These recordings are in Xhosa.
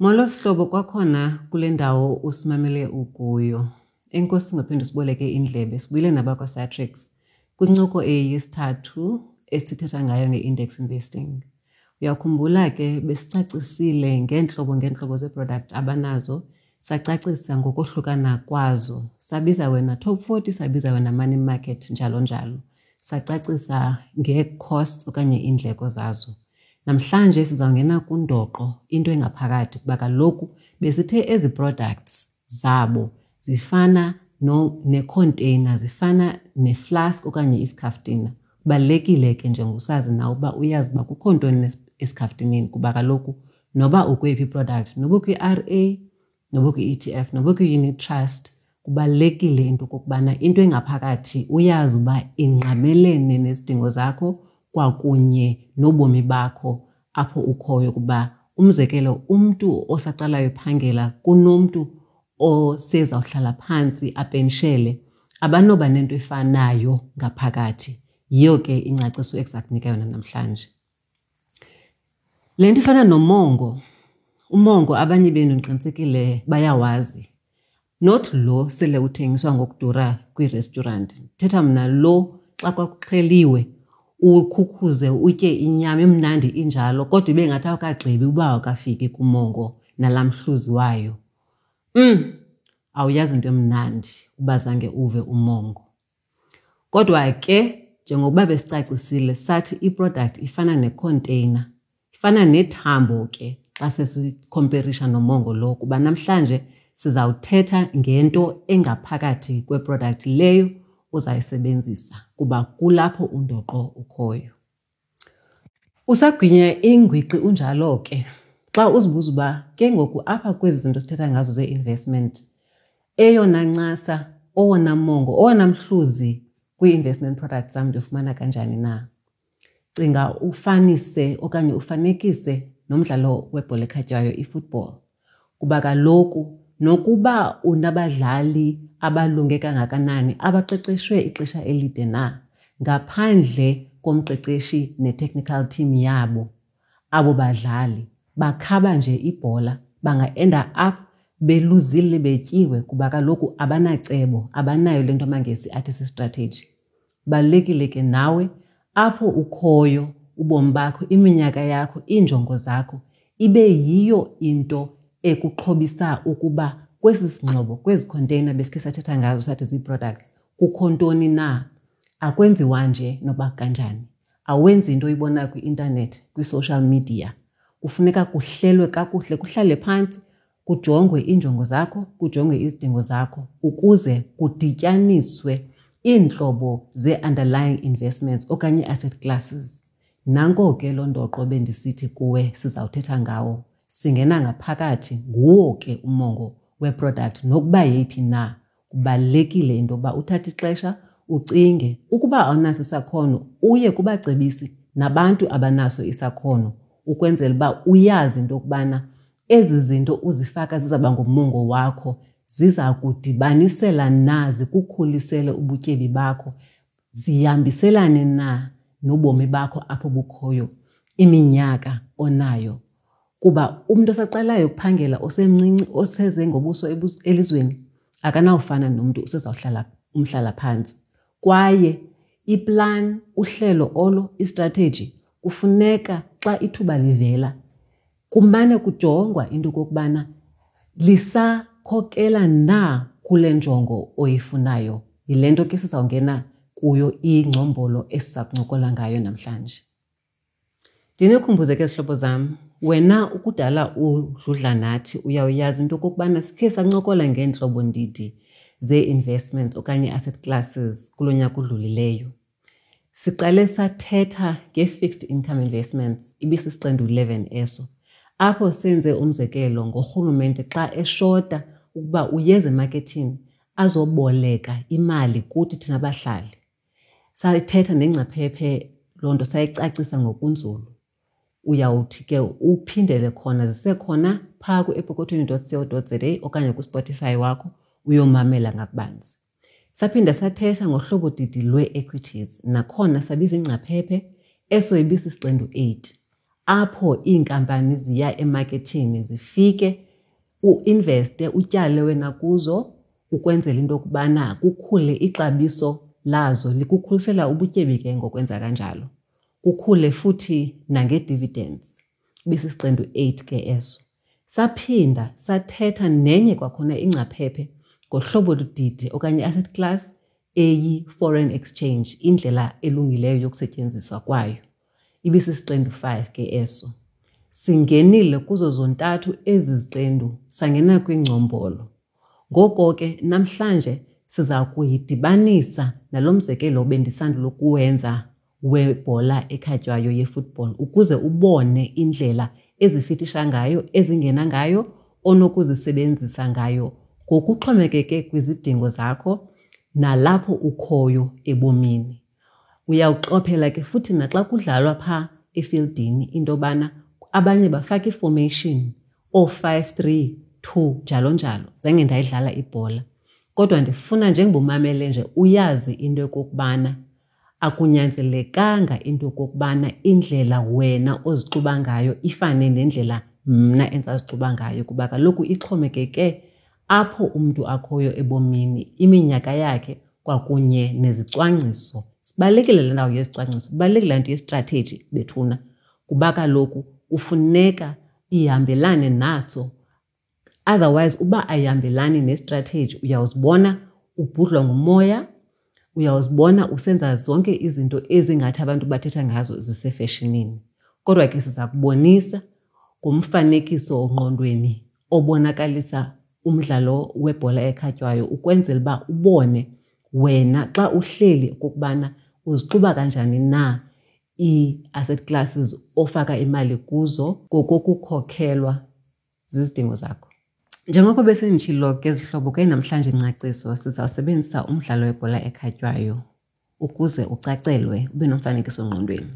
Molo sihlobo kwakhona kule ndawo usimamele ukuyo. Enkosi ngophinde usiboleke indlebe. Sibuyile nabakwaSatrix kwincoko eyesithathu esithetha ngayo nge-index investing. Uyakhumbula ke besicacisile ngeentlobo ngeentlobo zee-product abanazo, sacacisa ngokohlukana kwazo. Sabiza wena top 40, sabiza wena money market, njalo njalo. Sacacisa ngee-costs okanye iindleko zazo. Namhlanje sizawungena kundoqo, into engaphakathi, kuba kaloku besithe ezi products zabo zifana no nekhonteyina, zifana neflask okanye isikhaftina. Kubalulekile ke njengosazi nawe uba uyazi uba kukho ntoni esikhaftineni, kuba kaloku noba ukweyiphi iproduct, noba ukwi-R A, noba ukwi-E T F, noba ukwi-unit trust, kubalulekile into okokubana into engaphakathi uyazi uba ingqamelene nezidingo zakho kwakunye nobomi bakho apho ukhoyo. Kuba umzekelo, umntu osaqalayo ephangela kunomntu osezawuhlala phantsi apenshele, abanoba nento efanayo ngaphakathi. Yiyo ke ingcaciso ekuza kunika yona namhlanje. Le nto ifana nomongo, umongo abanye benu ndiqinisekile bayawazi. Not lo sele uthengiswa ngokudura kwiirestaurant. Thetha mna lo xa kwakuxheliwe ukhukhuze utye inyama imnandi injalo, kodwa ibe ngathi awukagqibi uba awukafiki kumongo nalaa mhluzi wayo. Awuyazi into emnandi uba zange uve umongo. Kodwa ke njengokuba besicacisile sathi iproduct ifana nekhonteyina, ifana nethambo ke xa sesikhomperisha nomongo lo, kuba namhlanje sizawuthetha ngento engaphakathi kweproduct leyo uzayisebenzisa, kuba kulapho undoqo ukhoyo. Usagwinya ingwiqi unjalo ke xa uzibuza uba ke ngoku apha kwezi zinto sithetha ngazo zee-investment, eyona ncasa, owona mongo, owona mhluzi kwii-investment products zam ndiwufumana kanjani na? Cinga ufanise okanye ufanekise nomdlalo webhola ekhatywayo, i-football. Kuba kaloku nokuba unabadlali abalunge kangakanani, abaqeqeshwe ixesha elide na, ngaphandle komqeqeshi ne-technical team yabo, abo badlali bakhaba nje ibhola, banga-enda up beluzile, betyiwe, kuba kaloku abanacebo, abanayo le nto amaNgesi athi si-strategy. Kubalulekile ke nawe apho ukhoyo, ubomi bakho, iminyaka yakho, iinjongo zakho, ibe yiyo into ekuxhobisa ukuba kwesi singxobo, kwezi khonteyina besikhe sathetha ngazo sathi zii-products, kukho ntoni na. Akwenziwa nje noba kanjani. Awenzi into oyibonayo kwi-intanethi, kwi-social media. Kufuneka kuhlelwe kakuhle, kuhlale phantsi, kujongwe iinjongo zakho, kujongwe izidingo zakho, ukuze kudityaniswe iintlobo zee-underlying investments okanye ii-asset classes. Nanko ke loo ndoqo bendisithi kuwe sizawuthetha ngawo. Singena ngaphakathi, nguwo ke umongo weproduct nokuba yeyiphi na. Kubalulekile into yokuba uthathe ixesha ucinge. Ukuba awunaso isakhono, uye kubacebisi nabantu abanaso isakhono, ukwenzela uba uyazi into yokubana ezi zinto uzifaka zizawuba ngumongo wakho, ziza kudibanisela na, zikukhulisele ubutyebi bakho, zihambiselane na nobomi bakho apho bukhoyo, iminyaka onayo. Kuba umntu osaqalayo ukuphangela, osemncinci, oseze ngobuso elizweni, akanawufana nomntu osezawuhlala umhlalaphantsi. Kwaye iplan, uhlelo olo, istrateji, kufuneka xa ithuba livela kumane kujongwa into okokubana lisakhokela na kule njongo oyifunayo. Yile nto ke sizawungena kuyo ingcombolo esiza kuncokola ngayo namhlanje. Ndinikhumbuze ke zihlobo zam, wena ukudala udludla nathi uyawuyazi into okokubana sikhe sancokola ngeentlobo ndidi zee-investments okanye asset classes kulo nyaka udlulileyo. Siqale sathetha nge-fixed income investments, ibisisiqendu 11 eso, apho senze umzekelo ngorhulumente xa eshota ukuba uyeza emakethini azoboleka imali kuthi thina bahlali. Sayithetha nengcaphephe loo nto, sayicacisa ngokunzulu. Uyawuthi ke uphindele khona, zisekhona phaa ku-epokothweni dot co dot za okanye kuSpotify wakho uyomamela ngakubanzi. Saphinda sathetha ngohlobo didi lwee-equities, nakhona sabiza ingcaphephe, eso ibisisiqendu 8. apho iinkampani ziya emaketheni zifike uinveste utyale wena kuzo ukwenzela into yokubana kukhule ixabiso lazo likukhulisela ubutyebi ke ngokwenza kanjalo kukhule futhi nangee-dividends ibisisiqendu 8 ke eso saphinda sathetha nenye kwakhona ingcaphephe ngohlobo ludidi okanye i-asset class eyi-foreign exchange indlela elungileyo yokusetyenziswa kwayo ibisisiqendu 5 ke eso singenile kuzo zontathu ezi ziqendu sangena kwingcombolo ngoko ke namhlanje siza kuyidibanisa nalo mzekelo bendisandula ukuwenza webhola ekhatywayo yefootball ukuze ubone indlela ezifitisha ngayo ezingena ngayo onokuzisebenzisa ngayo ngokuxhomekeke kwizidingo zakho nalapho ukhoyo ebomini. Uyawuqophela ke futhi naxa kudlalwa phaa efieldini into yobana abanye bafaka iformation oo-five, three, two njalo njalo. Zange ndayidlala ibhola kodwa ndifuna njengoba umamele nje uyazi into yokokubana akunyanzelekanga into yokokubana indlela wena ozixuba ngayo ifane nendlela mna endisazixuba ngayo kuba kaloku ixhomekeke apho umntu akhoyo ebomini, iminyaka yakhe kwakunye nezicwangciso. Sibalulekile le ndawo yezicwangciso, ibalulekile le nto yestrateji bethuna kuba kaloku kufuneka ihambelane naso. Otherwise uba ayihambelani nestrateji uyawuzibona ubhudlwa ngumoya, uyawuzibona usenza zonke izinto ezingathi abantu bathetha ngazo zisefeshinini. Kodwa ke siza kubonisa ngomfanekiso ongqondweni obonakalisa umdlalo webhola ekhatywayo ukwenzela uba ubone wena xa uhleli okokubana uzixuba kanjani na ii-asset classes ofaka imali kuzo ngokokukhokhelwa zizidingo zakho. Njengoko besenditshilo ke zihlobo ke namhlanje ingcaciso sizawusebenzisa umdlalo webhola ekhatywayo ukuze ucacelwe ube nomfanekiso ngqondweni.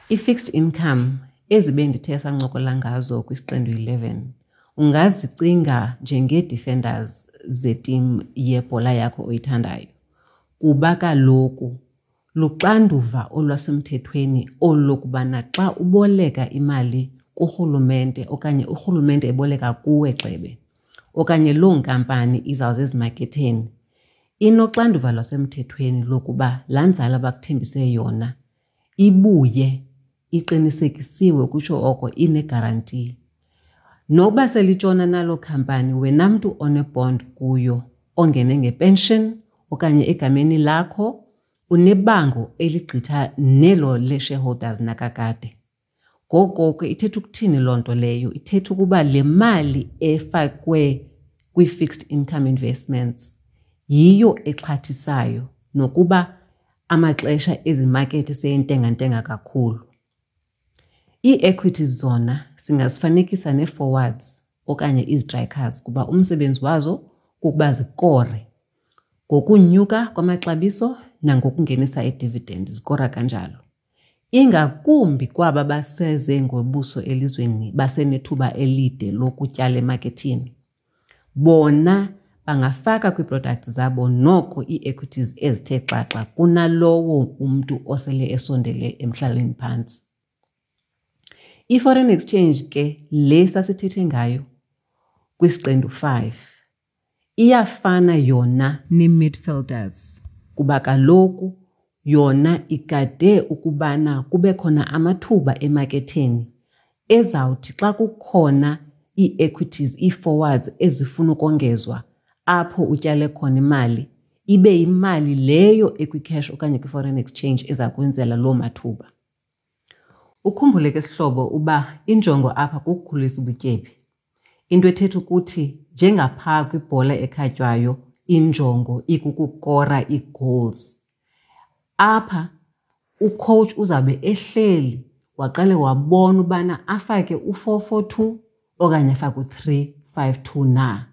I-fixed income ezi bendithe sancokola ngazo kwisiqendu 11 ungazicinga njengee-defenders zetim yebhola yakho oyithandayo kuba kaloku luxanduva olwasemthethweni olu lokubana xa uboleka imali kurhulumente okanye urhulumente eboleka kuwe gxebe okanye loo nkampani izawuze ezimaketheni inoxanduva lwasemthethweni lokuba laa nzala bakuthembise yona ibuye iqinisekisiwe kutsho oko inegaranti. Nokuba selitshona naloo khampani wena mntu onebond kuyo ongene ngepension okanye egameni lakho unebango eligqitha nelo le-shareholders nakakade. Ngoko ke ithetha ukuthini loo nto leyo? Ithetha ukuba le mali efakwe kwii-fixed income investments yiyo exhathisayo nokuba amaxesha ezimakethi seyentengantenga kakhulu. Ii-equities zona singazifanekisa nee-forwards okanye izitrikers kuba umsebenzi wazo kukuba zikore ngokunyuka kwamaxabiso nangokungenisa i-dividend, zikora kanjalo. Ingakumbi kwaba baseze ngobuso elizweni basenethuba elide lokutyala emakethini. Bona bangafaka kwii-products zabo noko ii-equities ezithe xaxa kunalowo umntu osele esondele emhlaleni phantsi. I-foreign exchange ke le sasithethe ngayo kwisiqendu 5 iyafana yona nee-midfielders kuba kaloku yona igade ukubana kube khona amathuba emaketheni ezawuthi xa kukhona ii-equities, ii-forwards ezifuna ukongezwa apho utyale khona imali, ibe yimali leyo ekwi-cash okanye kwi-foreign exchange eza kwenzela loo mathuba. Ukhumbule ke sihlobo uba injongo apha kukukhulisa ubutyebi. Into ethetha ukuthi njengaphaa kwibhola ekhatywayo injongo ikukukora ii-goals. Apha ucoach uzawube ehleli waqale wabona ubana afake u-4-4-2 okanye afake u-3-5-2 na.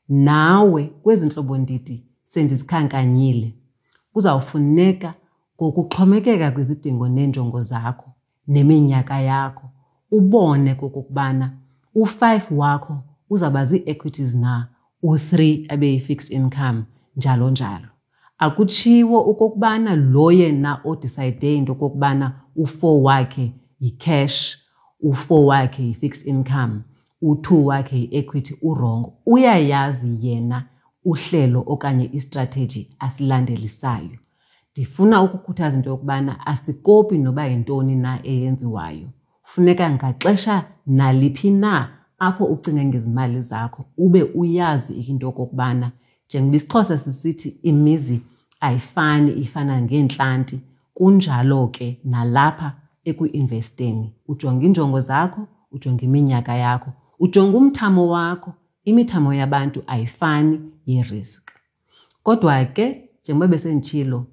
Nawe kwezi ntlobondidi sendizikhankanyile kuzawufuneka ngokuxhomekeka kwizidingo neenjongo zakho neminyaka yakho ubone kokokubana u-5 wakho uzawuba zii-equities na, u-3 abe yi-fixed income njalo njalo. Akutshiwo okokubana lo yena odisayide into okokubana u-4 wakhe yi-cash u-4 wakhe yi-fixed income, u-2 wakhe yi-equity, urongo. Uyayazi yena uhlelo okanye istrategy asilandelisayo. Ndifuna ukukhuthaza into yokubana asikopi noba yintoni na eyenziwayo. Funeka ngaxesha naliphi na apho ucinga ngezimali zakho ube uyazi into yokokubana njengoba isiXhosa sisithi imizi ayifani ifana ngeentlanti, kunjalo ke nalapha ekuinvesteni. Ujonga iinjongo zakho, ujonga iminyaka yakho, ujonga umthamo wakho. Imithamo yabantu ayifani yerisk. Kodwa ke njengoba besenditshilo,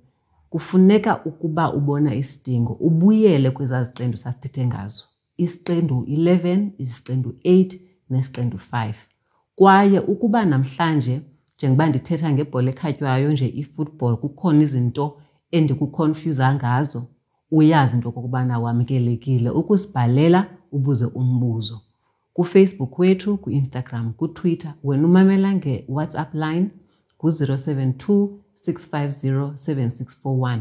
kufuneka ukuba ubona isidingo ubuyele kwezaa ziqendu sasithethe ngazo, isiqendu 11, isiqendu 8 nesiqendu 5. Kwaye ukuba namhlanje njengoba ndithetha ngebhola ekhatywayo nje, i-football, kukhona izinto endikukhonfyuza ngazo, uyazi into okokubana wamkelekile ukusibhalela ubuze umbuzo kuFacebook wethu, ku-Instagram, kuTwitter. Wena umamela nge-WhatsApp line ngu-072 650 7641.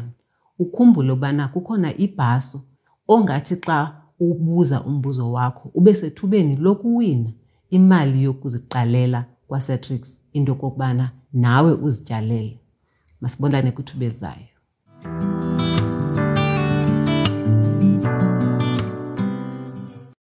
Ukhumbule ubana kukhona ibhaso ongathi xa ubuza umbuzo wakho ube sethubeni lokuwina imali yokuziqalela kwaSatrix, into okokubana nawe uzityalele. Masibonane kwithuba elizayo.